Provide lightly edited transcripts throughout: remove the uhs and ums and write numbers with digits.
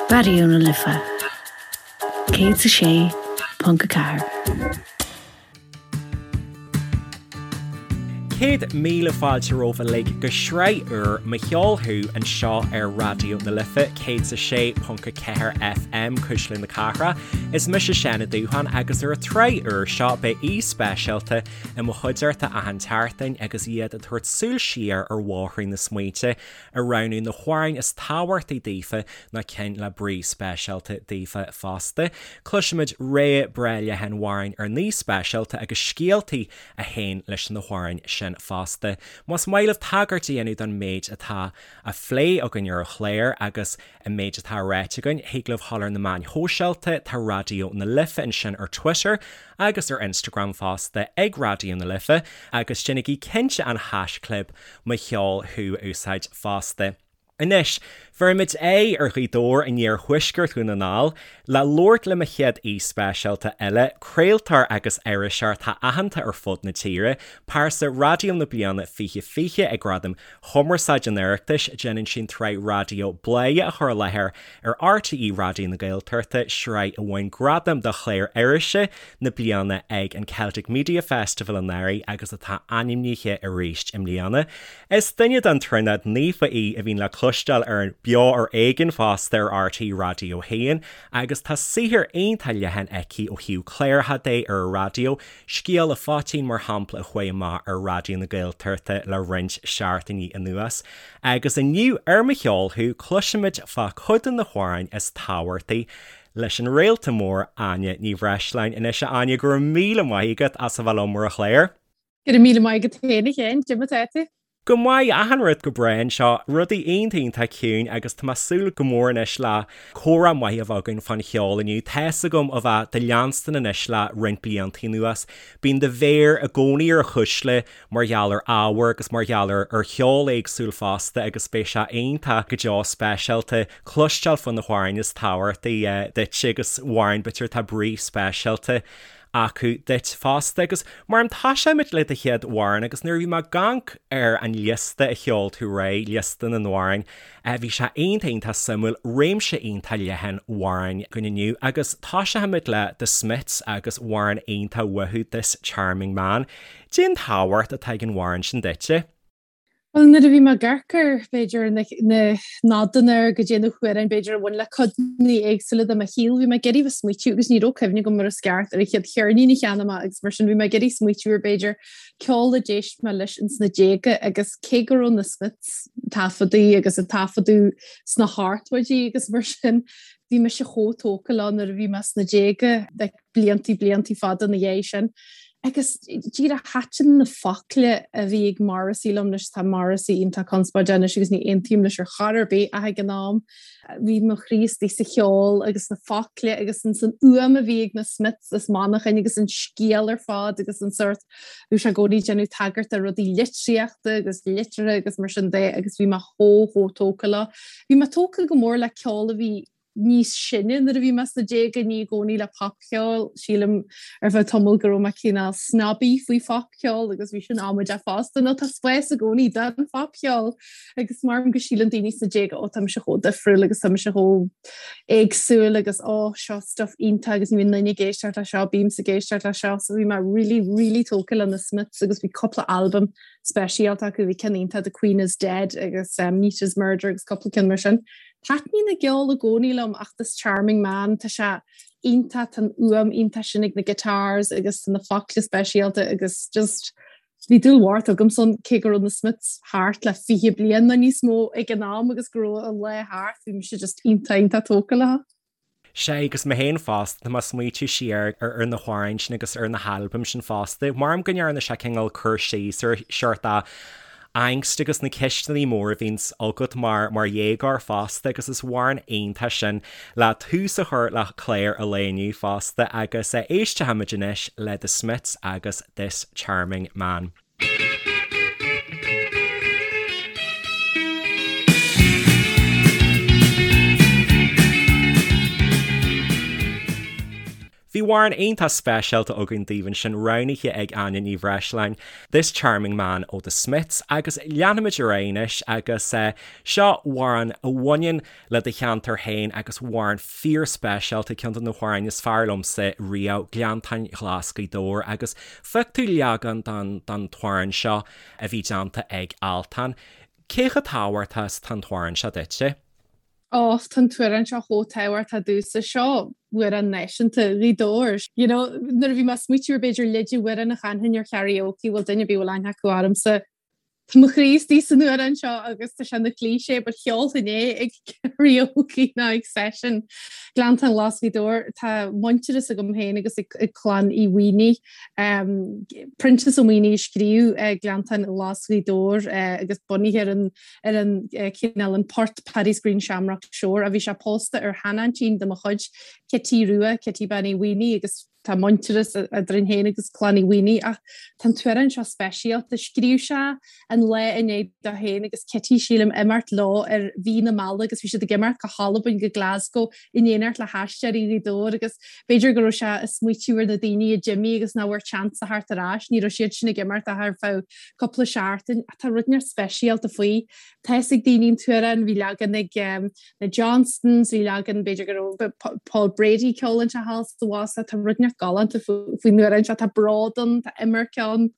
Raidió na Life 106.4. 100,000 fáilte romhaibh uilig go sraith úr Mo Cheol Thú anseo ar Raidió na Life 106.4 FM, Cuisle na Cathrach. Is mise Seán Ó Dúcháin agus ar an tsraith úr seo beidh aoi speisialta i mo chuideachta achan tseachtain agus iad ag tabhairt súil siar ar bhóithrín na smaointe ag roghnú na hamhráin is tábhachtaí daofa nó cinn le brí speisialta daofa fosta. Cloisfimid rogha breá leathan amhrán ar ndóigh speisialta agus scéaltaí a théann leis na hamhráin sin fosta. Más maith libh tagairt a dhéanamh don méid atá á phlé againn ar an chlár agus an méid atá ráite againn, thig libh dhul ar na meáin shóisialta, tá Raidió na Life ansin ar Twitter agus ar Instagram fosta ag Raidió na Life agus déanaigí cinnte an haischlib Mo Cheol Thú a úsáid fosta. Anois, bheirfimid aghaidh ar Ghaoth Dobhair in iarthuaisceart Dhún na nGall le labhairt le mo chéad aoi speisialta eile, craoltóir agus iriseoir atá aitheanta ar fud na tíre, pearsa raidió na bliana 2020 ag Gradaim Chumarsáide an Oireachtais, déanann sí an tsraith raidió Bladhaire a chur i láthair ar RTÉ Raidió na Gaeltachta, sraith a bhain gradam do chlár irise na bliana ag an Celtic Media Festival anuraidh agus atá ainmnithe arís i mbliana. Is duine den Tríonóid Naofa í a bhíonn le cloisteáil ar Beo ar Éigean fosta ar RTÉ Raidió 1 agus tá saothar iontach leathan aici ó thaobh cláracha de ar an raidió, Scéal a' Phoitín mar shampla a chuaigh amach ar Raidió na Gaeltachta le roinnt seachtainí anuas. Agus inniu ar Mo Cheol Thú cloisfimid fá chuid de na hamhráin is tábhachtaí leis an réalta mór Áine Ní Bhreisleáin. Anois a Áine, go raibh míle maith agat as a bheith liom ar an chlár. Go raibh míle maith agat féin a Sheáin, cad é mar atá tú? Go maith, achan rud go breá anseo, rudaí iontach iontach ciúin agus tá mé ag súil go mór anois le comhrá maith a bheith againn fán cheol inniu. Tá's agam ó bheith do leanstan anois le roinnt blianta anuas, bíonn do mhéar i gcónaí ar chuisle mar gheall ar ábhar agus mar gheall ar cheol éagsúil fosta agus beidh sé iontach go deo speisialta cloisteáil fá na hamhráin is tábhachtaí duit agus amhráin b'fhéidir atá brí speisialta acu duit fosta. Agus mar toiseoimid le do chéad amhrán agus nuair a bhí mé ag amharc ar an liosta a sheol tú roimhe, liosta na n-amhrán, bhí sé iontach iontach suimiúil, réimse iontach leathan amhrán againn inniu agus toiseoimid le The Smiths agus amhrán iontach uathu, This Charming Man. Cén tábhacht atá ag an amhrán sin duitse? Bhuel, nuair a bhí mé ag amharc ar, b'fhéidir, na nodanna ar go dté na hamhráin, b'fhéidir, a bhain le codanna éagsúla de mo shaol, bhí mé ag iarraidh bheith smaoitiú agus ní raibh cuimhne agam mar is ceart ar an chéad cheirnín a cheannaigh mé agus mar sin bhí mé ag iarraidh smaoitiú ar, b'fhéidir, ceol a d'éist mé leis ins na déaga agus cé go raibh na Smiths taifeadtaí agus a taifeadadh sna hochtóidí agus mar sin, bhí mise chomh tógtha leo nuair a bhí mé sna déaga, like, bliantaí, bliantaí fada ina dhiaidh sin. Agus díreach thaitin na focla a bhí ag Morrissey liom anois, tá Morrissey iontach conspóideach anois agus ní aontaím leis ar chor ar bith ach ag an am bhí mo chroí istigh sa cheol agus na focla agus an san fhuaim a bhí ag na Smiths as Manchain agus an scéal ar fad agus an sórt bhí sé i gcónaí ag déanamh tagairt do rudaí litríochta agus liteartha agus mar sin de agus bhí mé chomh chomh tógtha leo. Bhí mé tógtha go mór le ceol a bhí níos sine nuair a bhí mé sna déaga, ní i gcónaí le popcheol. Sílim ar feadh tamaill go raibh mé cineál snobby faoi phopcheol agus bhí sin amaideach fosta nó tá spás i gcónaí don phopcheol agus mar go síleann daoine sna déaga ó tá mise chomh difriúil agus tá mise chomh éagsúil agus ó seo stuff iontach agus ní bhíonn duine ag éisteacht le seo, bímse ag éisteacht le seo so bhí mé really really tógtha le na Smiths agus bhí cúpla albam speisialta acu, bhí ceann iontach The Queen is Dead agus um, Neat as Murder agus cúpla ceann mar sin. Taitníonn a gceol i gcónaí liom ach This Charming Man, tá sé iontach, tá an fhuaim iontach sin ag na guitars agus tá na focla speisialta agus just bhí dúil mhór agamsa ann cé go raibh na Smiths thart le 20 bliain nó níos mó ag an am agus go raibh a lá thart, bhí mise just iontach iontach tógtha leo. Sea, agus mé féin fosta, tá mé ag smaoitiú siar ar na hamhráin sin agus ar na halbaim sin fosta. Maram go ndearna sé cineál cur síos ar seort angst agus na ceisteanna móra a bhíonns agat mar mar dhéagóir fosta agus is amhrán iontach sin le tús a chur le clár an lae inniu fosta agus éistfimid anois le The Smiths agus This Charming Man. Bhí. amhrán iontach speisialta againn daoibh ansin, roghnaithe ag Áine Ní Bhreisleáin, This Charming Man ó The Smiths, agus leanfaimid ar aghaidh anois agus seo amhrán a bhaineann le do cheantar féin agus amhrán fíorspeisialta, ceann de na hamhráin is fearr liomsa riamh, Gleanntáin Ghlas Ghaoth Dobhair, agus phioc tú leagan den t-amhrán seo a bhí déanta ag Altan. Cé chomh tábhachtach is atá an t-amhrán seo duitse? Ó, tá an t-amhrán seo chomh tábhachtach domhsa. Seo amhrán náisiúnta Ghaoth Dobhair. You know, nuair a bhí mé ag smaoitiú ar b'fhéidir leid amhrán a chanfainn ar karaoke, bhfuil duine ar bith a bhfuil aithne acu ormsa, Tá mo chroí istigh san amhrán seo agus tá sé ina cliché but cheolfainn é ag karaoke nó ag session. Gleanntáin Ghlas Ghaoth Dobhair, tá muintearas agam féin agus ag clann Uí Mhaonaigh. Proinsias Ó Maonaigh a scríobh Gleanntáin Ghlas Ghaoth Dobhair agus bunaithe ar an ar an cineál an port Paddy's Green Shamrock Shore a bhí sé pósta ar sheanaintín de mo chuid, Cití Rua, Cití Bean Uí Mhaonaigh agus Tá muintearas eadrainn féin agus clann Uí Mhaonaigh ach tá an t-amhrán seo speisialta. Scríobh sé an lá i ndiaidh dó féin agus Cití, sílim, imeacht leo ar mhí na meala agus bhí siad ag imeacht go hAlbain, go Glasgow, in éineacht le hAisteoirí Ghaoth Dobhair agus b'fhéidir go raibh sé ag smaoitiú ar na daoine a d'imigh agus nach bhfuair seans a theacht ar ais. Ní raibh siad sin ag imeacht ach ar feadh cúpla seachtain. Ach tá rud inteacht speisialta faoi. Tá fhios ag daoine an t-amhrán, bhí leagan ag na Johnstons, bhí leagan b'fhéidir go raibh Paul Brady ag ceol anseo thall sa bhfásach, tá rud inteacht galánta faoin amhrán seo, tá bród ann, tá imirce ann,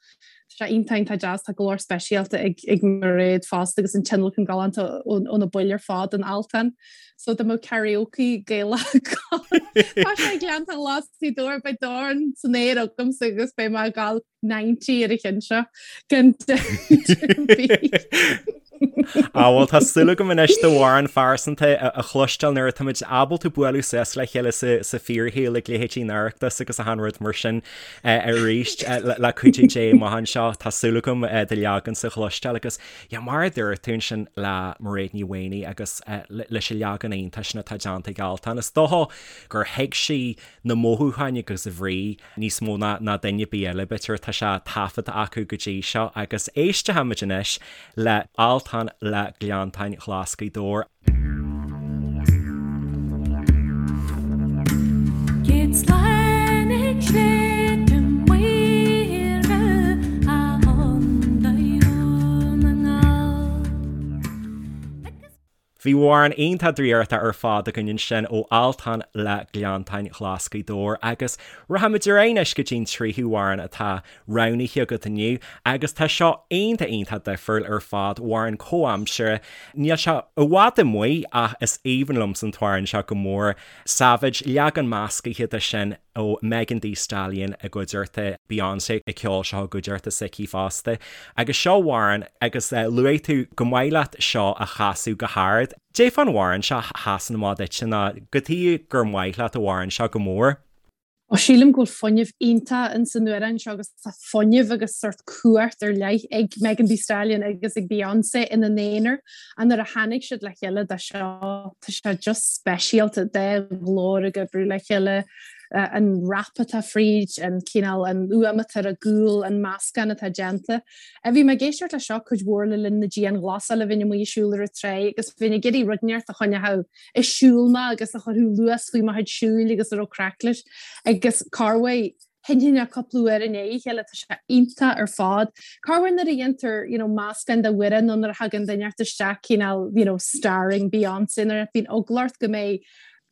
tá sé iontach iontach deas, tá glór speisialta ag ag Mairéad fosta agus an tionlacan galánta ó na baill ar fad in Altan. So dá mbeadh karaoke Gaelach Tá sé Gleanntáin Ghlas Ghaoth Dobhair beidh dorn san aer agamsa agus beidh mé ag gabháil 90 ar an cheann seo gan dabht ar bith. Á bhuel tá súil agam anois d'amhrán phearsanta a chloisteáil nuair atáimid ábalta bualadh suas le chéile sa fíorshaol ag leithéidí an Oireachtas agus achan rud mar sin arís le cuidiú Dé amach anseo. Tá súil agam do leagansa a chloisteáil agus yeah, mar a dúirt tú ansin le Mairéad Ní Mhaonaigh agus leis an leagan iontach sin atá déanta ag Altan, is dócha gur thuig sí na mothúcháin agus a bhrí níos mó ná duine ar bith eile, b'fhéidir, tá sé taifeadta acu go dtí seo agus éistfimid anois le Altan le Gleanntáin Ghlas Ghaoth Dobhair. Bhí amhrán iontach draíochta ar fad againn ansin ó Altan le Gleanntáin Ghlas Ghaoth Dobhair agus rachaimid ar aghaidh anois go dtí'n tríú amhrán atá roghnaithe agat inniu agus tá seo iontach iontach difriúil ar fad, amhrán comhaimseartha, níl sé i bhfad amuigh ach is aoibhinn liomsa an t-amhrán seo go mór, Savage, leagan meascaithe de sin ó Megan Thee Stallion i gcuideachta Beyonce ag ceol seo i gcuideachta s'aici fosta. Agus seo amhrán agus luaigh tú go maith leat seo a chasadh go hard. Cad é fán amhrán seo a sheasann amach duitse nó cad chuige gur maith leat an amhrán seo go mór. Ó sílim go bhfuil fuinneamh iontach in san amhrán seo agus tá fuinneamh agus sórt cumhacht ar leith ag Megan Thee Stallion agus ag Beyonce ina n-aonar ach nuair a tháinig siad le chéile do seo tá sé just speisialta dá nglór ag oibriú le chéile, an rap atá fríd, an cineál, an fhuaim atá ar an gcúl, an meascán atá déanta. Bhí mé ag éisteacht le seo cuid mhór le linn na dianghlasála, bheinn amuigh ag siúl ar an tráigh agus bheinn ag iarraidh rud inteacht a choinneodh ag siúl mé agus a chuirfeadh luas faoi mo chuid siúil agus a raibh craic leis agus corruair sheinnfinn é cúpla uair i ndiaidh a chéile, tá sé iontach ar fad. Corruair nuair a dhéantar you know meascán de amhrán nó nuair a thagann duine inteacht isteach cineál you know starring Beyonce nuair a bhíonn eagla ort go mbeidh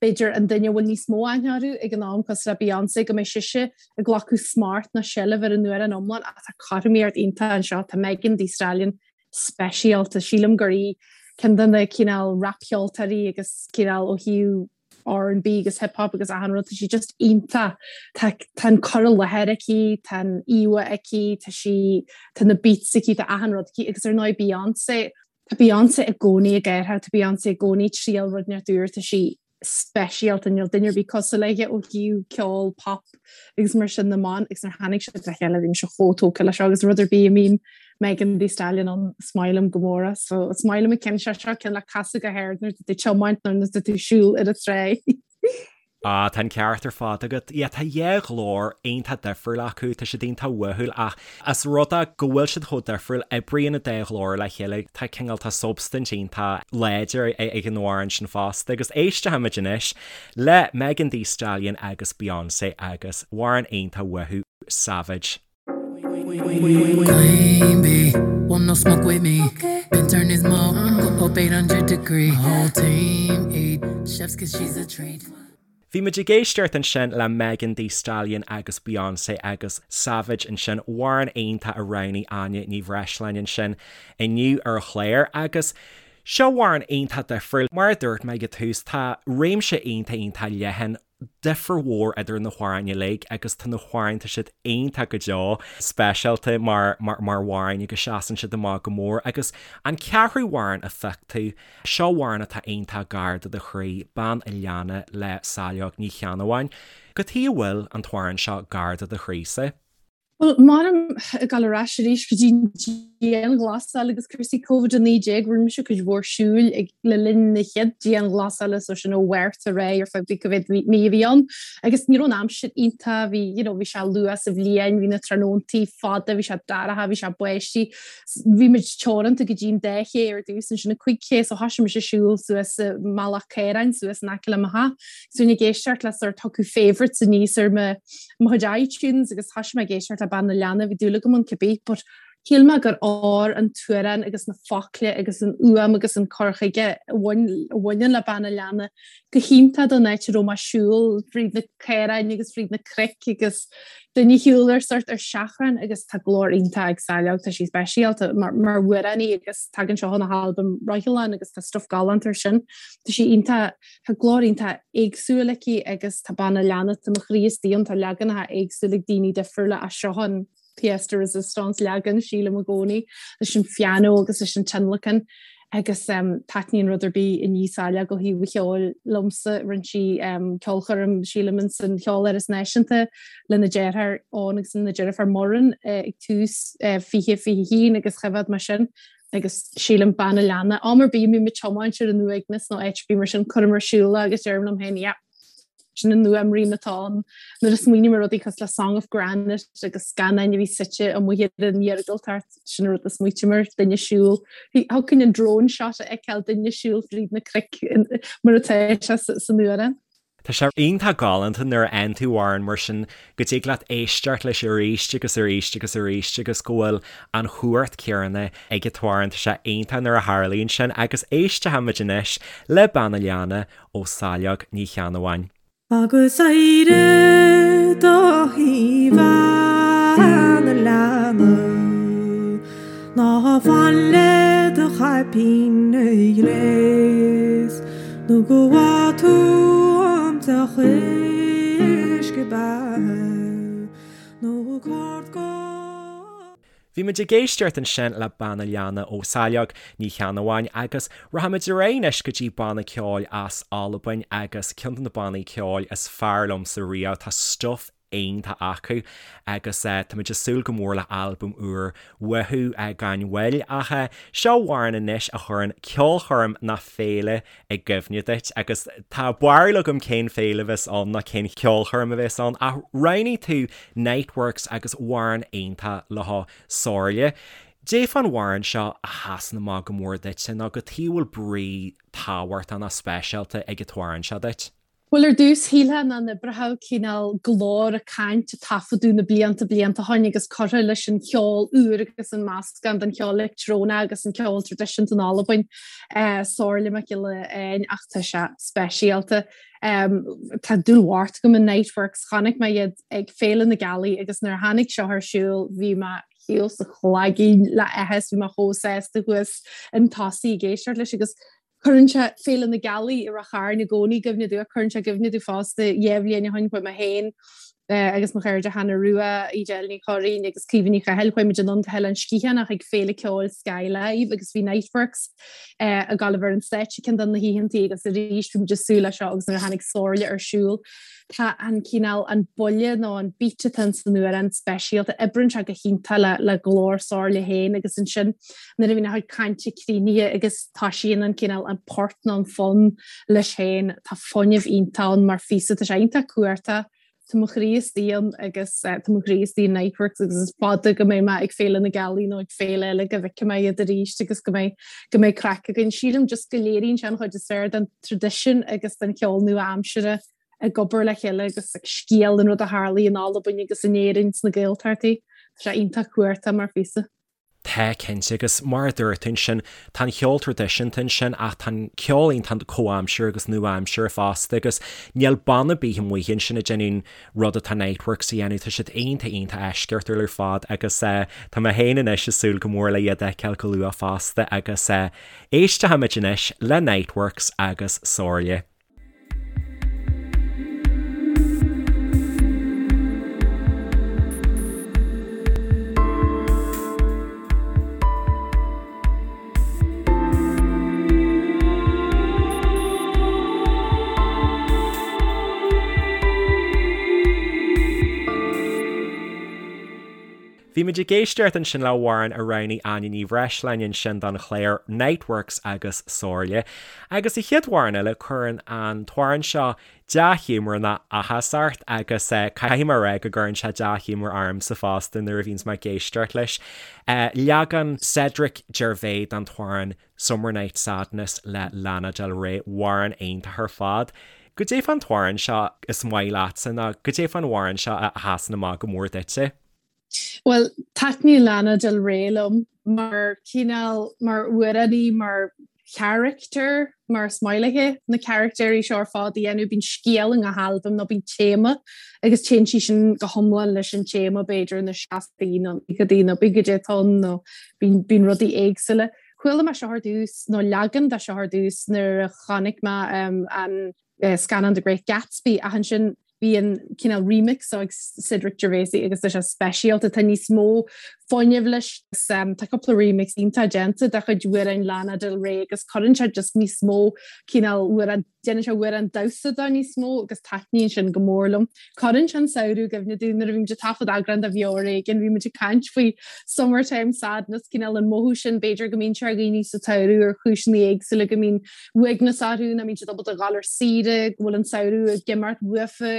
b'fhéidir an duine a bhfuil níos mó aithne orthu ag an am cosúil le Beyonce go mbeidh sise ag glacadh smacht nó seilbh ar an amhrán iomlán ach tá cothromaíocht iontach anseo, tá Megan Thee Stallion speisialta. Sílim gur í ceann de na cineál rapcheoltóirí agus cineál ó thaobh R&B agus hip hop agus achan rud, tá sí just iontach. Tá tá an cur i láthair aici, tá an íomhá aici, tá sí tá na beats aici, tá achan rud aici agus ar ndóigh Beyonce, tá Beyonce i gcónaí ag athrú, tá Beyonce i gcónaí ag triail rud inteacht úr, tá sí speisialta, níl duine ar bith cosúil léi ó thaobh ceol pop agus mar sin na mban agus nuair a tháinig siad le chéile bhí mise chomh tógtha leis seo agus rud ar bith a mbíonn Megan Thee Stallion ann is maith liom go mór é so is maith liom an ceann seo seo ceann le casadh go hard nuair atá tú ag tiomáint nó nuair atá tú ag siúl ar an tráigh. Ah, tá an ceart ar fad agat. Yeah, tá dhá ghlór iontach difriúil acu, tá siad iontach uathúil ach as rud é go bhfuil siad chomh difriúil, oibríonn an dá ghlór le chéile, tá cineál, tá substaint iontach láidir ag an amhrán sin fosta. Agus éistfimid anois le Megan Thee Stallion agus Beyoncé agus amhrán iontach uathu, Savage. Queen bee, want no smoke with me. Been turn this mo up 800 degree. Whole team eat chef's kiss she's a treat. Bhí muid ag éisteacht ansin le Megan Thee Stallion agus Beyoncé agus Savage ansin, amhrán iontach a roghnaigh Áine Ní Bhreisleáin ansin inniu ar an chlár agus seo amhrán iontach difriúil. Mar a dúirt mé ag an tús, tá réimse iontach iontach leathan difir mhór idir na hamhráin uilig agus tá na hamhráin, tá siad iontach go deo, speisialta mar mar mar amhráin agus seasann siad amach go mór agus an ceathrú amhrán a phioc tú, seo amhrán atá iontach gar do do chroí, Bean a' Leanna le Saileog Ní Cheannabháin. Cad chuige a bhfuil an t-amhrán seo gar do do chroísa? Bhuel, m'anam ag dul ar ais arís go dtí an dianghlasáil agus cúrsaí Covid-19, rinne mise cuid mhór siúil ag le linn na chéad dianghlasála, so sin ó Mhárta ar aghaidh ar feadh cá mhéad mí a bhí ann. Agus ní raibh an aimsir iontach, bhí, you know, bhí sé luath sa bhliain, bhí na tráthnóntaí fada, bhí sé dorcha, bhí sé báistí. Bhí muid teoranta go dtí an dá ché ar dtús, ansin an 5 ché, so thoisigh mise ag siúl suas i mBealach Caoráin, suas in aice le mo theach. So bhínn ag éisteacht le sort thiocfadh favourites aníos ar mo mo chuid iTunes agus thoisigh mé ag éisteacht le Bean na Leanna, bhí dúil agam ann cibé, but shíl mé gur fhóir an t-amhrán agus na focla agus an fhuaim agus an cur chuige a bhaineann le Bean na Leanna go hiontach don áit a raibh mé ag siúl fríd na caoráin agus fríd na cnoic agus duine ag siúl ar sort ar seachrán agus tá glór iontach ag Saileog, tá sí speisialta mar mar amhránaí agus tagann seo óna halbam Roicheallán agus tá stuff galánta ar sin. Tá sí iontach Tá glór iontach éagsúil aici agus tá Bean a' Leanna, tá mo chroí istigh ann, tá leaganacha éagsúla ag daoine difriúla as seo an pièce de résistance leagan, sílim i gcónaí, leis an phianó agus leis an tionlacan agus taitníonn rud ar bith a ní Saileog ó thaobh an cheoil liomsa. Rinne sí ceolchoirm, sílim, in san Cheoláras Náisiúnta lena deartháir Eoin agus lena deirfiúr Muireann ag tús 2021 agus choimhéad mé sin. agus sílim Bean a' Leanna, am ar bith a mbím ag tiomáint ar an uaigneas nó áit ar bith mar sin, cuirim ar siúl é agus deirim liom féin, yeah, sin an fhuaimrian atá ann. Nuair a smaoiním ar rudaí cosúil le Song of Granite agus scannáin a bhí suite amuigh ar an iargúltacht, sin an rud a smaoitím air, duine ag siúl. Thiocfainn an drone shot a fheiceáil, duine ag siúl fríd na cnoic mar atá sé san amhrán. Tá sé iontach galánta nuair a fhaigheann tú amhrán mar sin go dtig leat éisteacht leis arís agus arís agus arís agus go bhfuil an chumhacht chéanna ag an t-amhrán. Tá sé iontach nuair a tharlaíonn sin agus éistfimid anois le Bean a' Leanna ó Saileog Ní Cheannabháin. Agus éirigh do shuí bhean a' leanna Ná fan le do chaipín a ghléas. Nó go bhfaighidh tú an deoch uisce beatha nó cárd go. Bhí muid ag éisteacht ansin le Bean a' Leanna ó Saileog Ní Cheannabháin agus rachaimid ar aghaidh anois go dtí banna ceoil as Albain agus ceann de na bannaí ceoil is fearr liomsa riamh, tá stuif iontach acu agus táimid ag súil go mór le albam úr uathu gan mhoill. Ach seo amhrán anois a chuireann ceolchoirm ná féile i gcuimhne duit agus tá barúil agam cén féile a bheas ann ná cén cheolchoirm a bheas ann ach roghnaigh tú Niteworks agus amhrán iontach leo Somhairle. Cad é fán amhrán seo a sheasann amach go mór duitse nó cad chuige a bhfuil brí tábhachtach ná speisialta ag an t-amhrán seo duit? Bhuel, ar dtús, shílfeá nach n-oibreodh cineál glór ag caint a taifeadadh na blianta blianta ó shin agus curtha leis an cheol úr agus an meascán den cheol leictreonach agus an ceol traidisiúnta in Albain, Somhairle MacGiolla Eáin, ach tá sé speisialta. Tá dúil mhór agam in Niteworks. Chonaic mé iad ag Féile na Gealaí agus nuair a tháinig seo ar siúl bhí mé thíos sa chlaigín le áthas, bhí mé chomh sásta thuas chun tosaigh ag éisteacht leis agus Cuireann sé Féile na Gealaí i Ráth Chairn i gcónaí i gcuimhne domh, cuireann sé i gcuimhne domh fosta, dhá bhliain ó shin chuaigh mé féin. Agus mo chairde Hannah Rua, Edel Ní Churraoin agus Caoimhe Ní Chathail, chuaigh muid anonn go hOileán Sgitheanach ag Féile Ceoil Skye Live agus bhí Niteworks ag gabháil a bheith ar an stáitse ceann de na hoícheantaí agus arís bhí muid ag súil leis seo agus nuair a tháinig Somhairle ar siúl tá an cineál, an buille nó an beat atá ins an amhrán speisialta, oibríonn sé go hiontach le le glór Somhairle féin agus ansin nuair a bhíonn a chuid cainte críochnaithe agus toisíonn an cineál, an port nó an fonn leis féin, tá fuinneamh iontach ann mar phíosa, tá sé iontach cumhachtach, tá mo chroí istigh ann agus tá mo chroí istigh in Niteworks agus is fada go mbeidh mé ag Féile na Gealaí nó ag féile eile go bhfeicfidh mé iad arís agus go mbeidh go mbeidh craic againn. Sílim just go léiríonn sé an chuid is fearr den traidisiún agus den cheol nua-aimseartha ag obair le chéile agus ag scéal an rud a tharlaigh in Albain agus in Éirinn sna Gaeltachtaí. Tá sé iontach cumhachtach mar phíosa. Tá, cinnte, agus mar a dúirt tú ansin, tá an cheol traidisiúnta ansin ach tá an ceol iontach comhaimseartha agus nua-aimseartha fosta agus níl banna ar bith amuigh ansin ag déanamh an rud atá Niteworks a dhéanamh, tá siad iontach iontach eisceachtúil ar fad agus tá mé féin anois ag súil go mór le iad a fheiceáil go luath fosta agus éistfimid anois le Niteworks agus Somhairle. Bhí muid ag éisteacht ansin le hamhrán a roghnaigh Áine Ní Bhreisleáin ansin don chlár Niteworks agus Somhairle. Agus an chéad amhrán eile, cuireann an t-amhrán seo dea-ghiúmar nó áthas ort agus caithfidh mé a rá go gcuireann sé dea-ghiúmar ormsa fosta nuair a bhíonns mé ag éisteacht leis. Leagan Cedric Gervais den t-amhrán Summer Night Sadness le Lana Del Rey, amhrán iontach ar fad. Goidé fán t-amhrán seo is maith leatsa nó goidé fán amhrán seo a sheasann amach go mór duitse? Bhuel, taitníonn Lana Del Rey liom mar chineál, mar amhránaí, mar charachtar, mar is maith léi na carachtéirí seo ar fad a dhéanamh. Bíonn scéal i ngach albam nó bíonn téama agus téann sí sin go hiomlán leis an téama, b'fhéidir, na seascaidí nó naochadaí nó pé goidé atá ann nó bíonn rudaí éagsúla. Chuala mé seo ar dtús, nó leagan de seo ar dtús nuair a chonaic mé an scannán The Great Gatsby ach ansin bhí an cineál remix seo ag Cedric Gervais agus tá sé speisialta, tá níos mó fuinnimh leis. Tá cúpla remix iontach déanta de chuid amhráin Lana Del Rey agus cuireann sé just níos mó cineál amhrán, déanann sé amhrán damhsa de níos mó agus taitníonn sin go mór liom. Cuireann sé an samhradh i gcuimhne dúinn nuair a bhí muid ag taifead eagrán de Bheo ar Éigean, bhí muid ag caint faoi summertime sadness, cineál an mothú sin b'fhéidir go mbíonn sé ar dhaoine sa tsamhradh ar chúiseanna éagsúla go mbíonn uaigneas orthu, nach mbíonn siad ábalta a dhul ar saoire, go bhfuil an samhradh ag imeacht uafa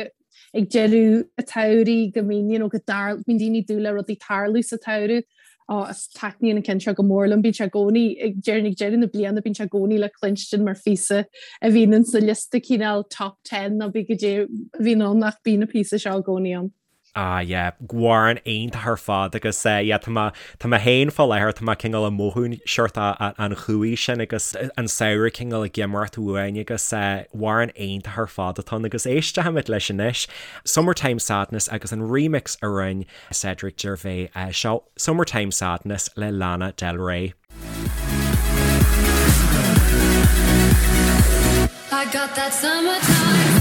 ag deireadh an tsamhraidh, go mbíonn, you know, go dtar, bíonn daoine ag dúil le rudaí tarlú sa tsamhradh. Ó, is taitníonn an ceann seo go mór liom, bíonn sé i gcónaí, ag deireadh, ag deireadh na bliana, bíonn sé i gcónaí le cluinstin mar phíosa a bhíonn in sa liosta cineál top ten nó pé goidé a bhíonn ann ach bíonn an píosa seo i gcónaí ann. Ah yeah, amhrán iontach ar fad agus eh yeah tá mé, tá mé féin fá láthair, tá mé cineál ag mothú seort an chumhaidh sin agus an samhradh cineál ag imeacht uainn agus eh amhrán iontach ar fad atá ann agus éistfimid leis anois, Summertime Sadness agus an remix a rinne Cedric Gervais eh seo Summertime Sadness le Lana Del Rey. I got that summertime.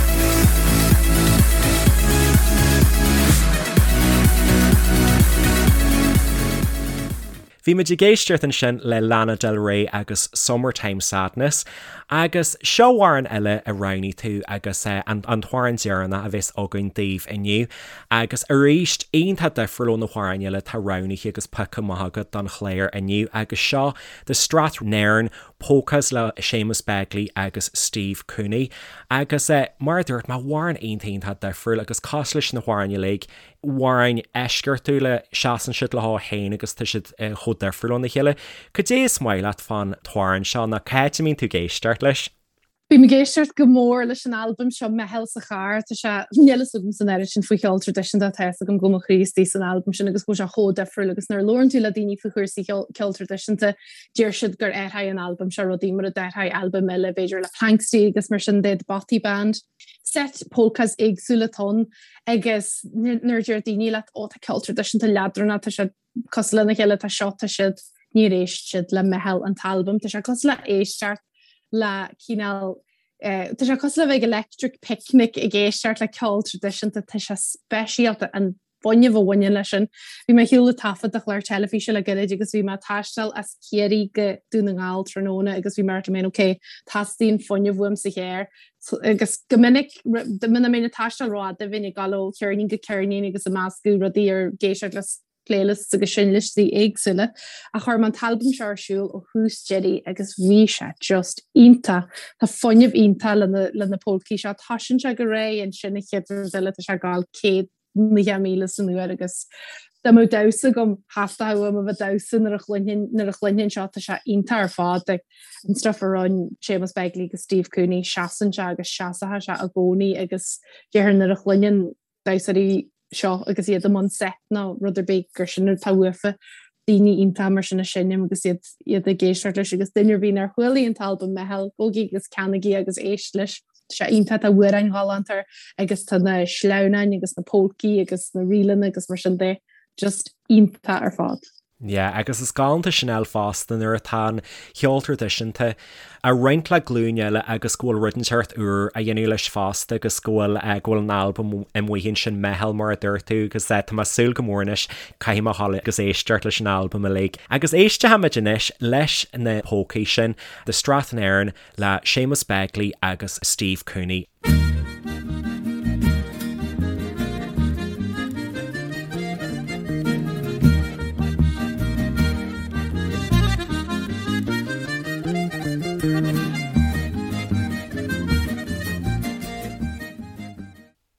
Bhí muid ag éisteacht ansin le Lana Del Rey agus Summertime Sadness agus seo amhrán eile a roghnaigh tú agus an t-amhrán deireanach a bheas againn daoibh inniu agus arís iontach difriúil ó na hamhráin eile atá roghnaithe agus pioctha amach agat don chlár inniu agus seo The Strathnairn Polkas le Séamus Begley agus Steve Cooney. Agus mar a dúirt mé, amhrán iontach iontach difriúil agus cosúil leis na hamhráin uilig, amhráin eisceachtúla, seasann siad leo féin agus tá siad chomh difriúil óna chéile. Cad é is maith leat fán t-amhrán seo nó cá háit a mbíonn tú ag éisteacht leis? Bím ag éisteacht go mór leis an albam seo, Meitheal sa Charr. Tá sé, níl fhios agam san oiread sin faoi cheol traidisiúnta ach tá fhios agam go bhfuil mo chroí istigh san albam sin agus go bhfuil sé chomh difriúil agus nuair a labhrann tú le daoine faoi chúrsaí ceol traidisiúnta, deir siad gur athraigh an albam seo rudaí mar a d'athraigh albaim eile b'fhéidir le Planxty agus mar sin de, The Bothy Band. Set polkas éagsúla atá ann agus nuair a deir daoine leat ó tá ceol traidisiúnta leadránach, tá sé cosúil lena chéile, tá seo, tá siúd, níor éist siad le Meitheal an t-albam, tá sé cosúil le éisteacht le cineál. Tá sé cosúil le bheith ag electric picnic ag éisteacht le ceol traidisiúnta, tá sé speisialta an fuinneamh a bhaineann leis sin. Bhí mé ar shiúl ag taifead do chlár teilifíse le gairid agus bhí mé ag taisteal as Ciarraí go Dún na nGall tráthnóna agus bhí mé ag rá liom féin ok, teastaíonn fuinneamh uaim sa charr agus go minic muna mbeinn ag taisteal rófhada bheinn ag dul ó cheirnín go ceirnín agus ag meascadh rudaí ar ag éisteacht le playlists agus seinnliostaí éagsúla ach chuir mé an t-albam seo ar siúl ó thús deiridh agus bhí sé just iontach. Tá fuinneamh iontach le na le na polcaí seo. Toisíonn sé go réidh ansin an chéad rud eile tá sé ag gabháil 190,000 san uair agus dá mbeadh damhsa agam theastódh uaim a bheith ag damhsa nuair a chluinfinn nuair a chluinfinn seo tá sé iontach ar fad. Like, an stuff a rinne Séamus Begley agus Steve Cooney seasann sé agus seasfaidh sé i gcónaí agus déarfainn nuair a chluineann damhsóirí seo agus iad i mbun seit nó rud ar bith gur sin atá uafa daoine iontacha mar sin ag seinm agus iad iad ag éisteacht leis agus duine ar bith nár chualaigh an t-albam Meitheal, gabhaigí agus ceannaigí agus éist leis. Tá sé iontach, tá amhráin ghalánta air agus tá na sleamhnáin agus na polcaí agus na ríleanna agus mar sin de just iontach ar fad. Yeah, agus is galánta sin a fháil fosta nuair atá an ceol traidisiúnta á roinnt le glúin eile agus go bhfuil rud inteacht úr á dhéanamh leis fosta agus go bhfuil eh, go bhfuil an albam amuigh ansin Meitheal mar a dúirt tú agus eh, tá mé ag súil go mór anois caithfidh mé a ghabháil agus éisteacht leis an albam uilig. Agus éistfimid anois leis na polcaí sin, The Strathnairn le Séamus Begley agus Steve Cooney.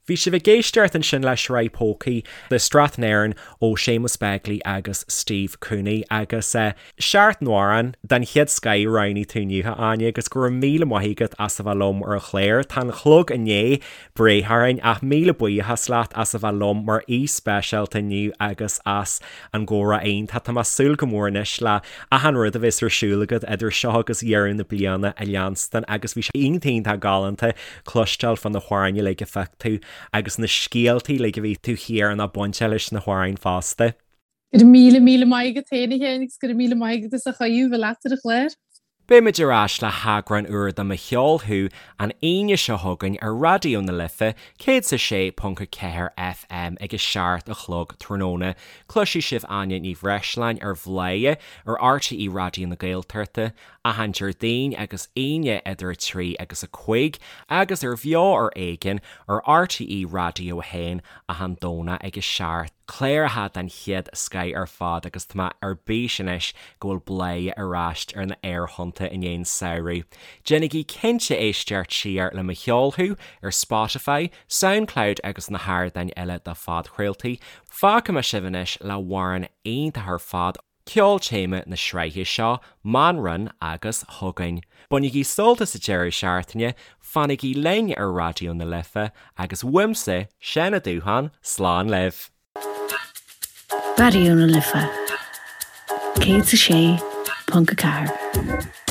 Bhí sibh ag éisteacht ansin le sraith polcaí The Strathnairn ó Séamus Begley agus Steve Cooney agus seacht n-amhrán den chéad scoith a roghnaigh tú inniu, a Áine, agus go raibh míle maith agat as a bheith liom ar an chlár. Tá an clog i ndiaidh breith orainn ach míle buíochas leat as a bheith liom mar aoi speisialta inniu agus as an gcomhrá iontach. Tá mé ag súil go mór anois le achan rud a bheas ar siúl agat idir seo agus dheireadh na bliana a leanstan agus bhí sé iontach iontach galánta cloisteáil fá na hamhráin uilig a phioc tú agus na scéaltaí uilig a bhí taobh thiar ná bainteach leis na hamhráin fosta. Go raibh míle míle maith agat féin a Sheáin agus go raibh míle maith agat as an chuireadh bheith leat ar an chlár. Beimid ar ais le heagrán úr de Mo Cheol Thú an Aoine seo chugainn ar Raidió na Life 106.4 FM ag a 7 a chlog tráthnóna. Cloisfidh sibh Áine Ní Bhreisleáin ar Bhladhaire ar RTÉ Raidió na Gaeltachta achan Déardaoin agus Aoine idir 3 agus 5 agus ar Bheo ar Éigean ar RTÉ Raidió 1 achan Domhnach ag 7. Cláracha den chéad scoith ar fad agus tá mé ar bís anois go bhfuil Bladhaire ar ais ar na aerthonnta i ndiaidh an samhradh. Déanaigí cinnte éisteacht siar le Mo Cheol Thú ar Spotify, Soundcloud agus na hardáin eile do phodchraoltaí. Fágfaidh mé sibh anois le hamhrán iontach ar fad. Ceol téama na sraithe seo, Manran agus Chugainn. Bainigí sult as an deireadh seachtaine, fanaigí linn ar Raidió na Life agus uaimse, Seán Ó Dúcháin, slán libh! Raidió na Life 106.4.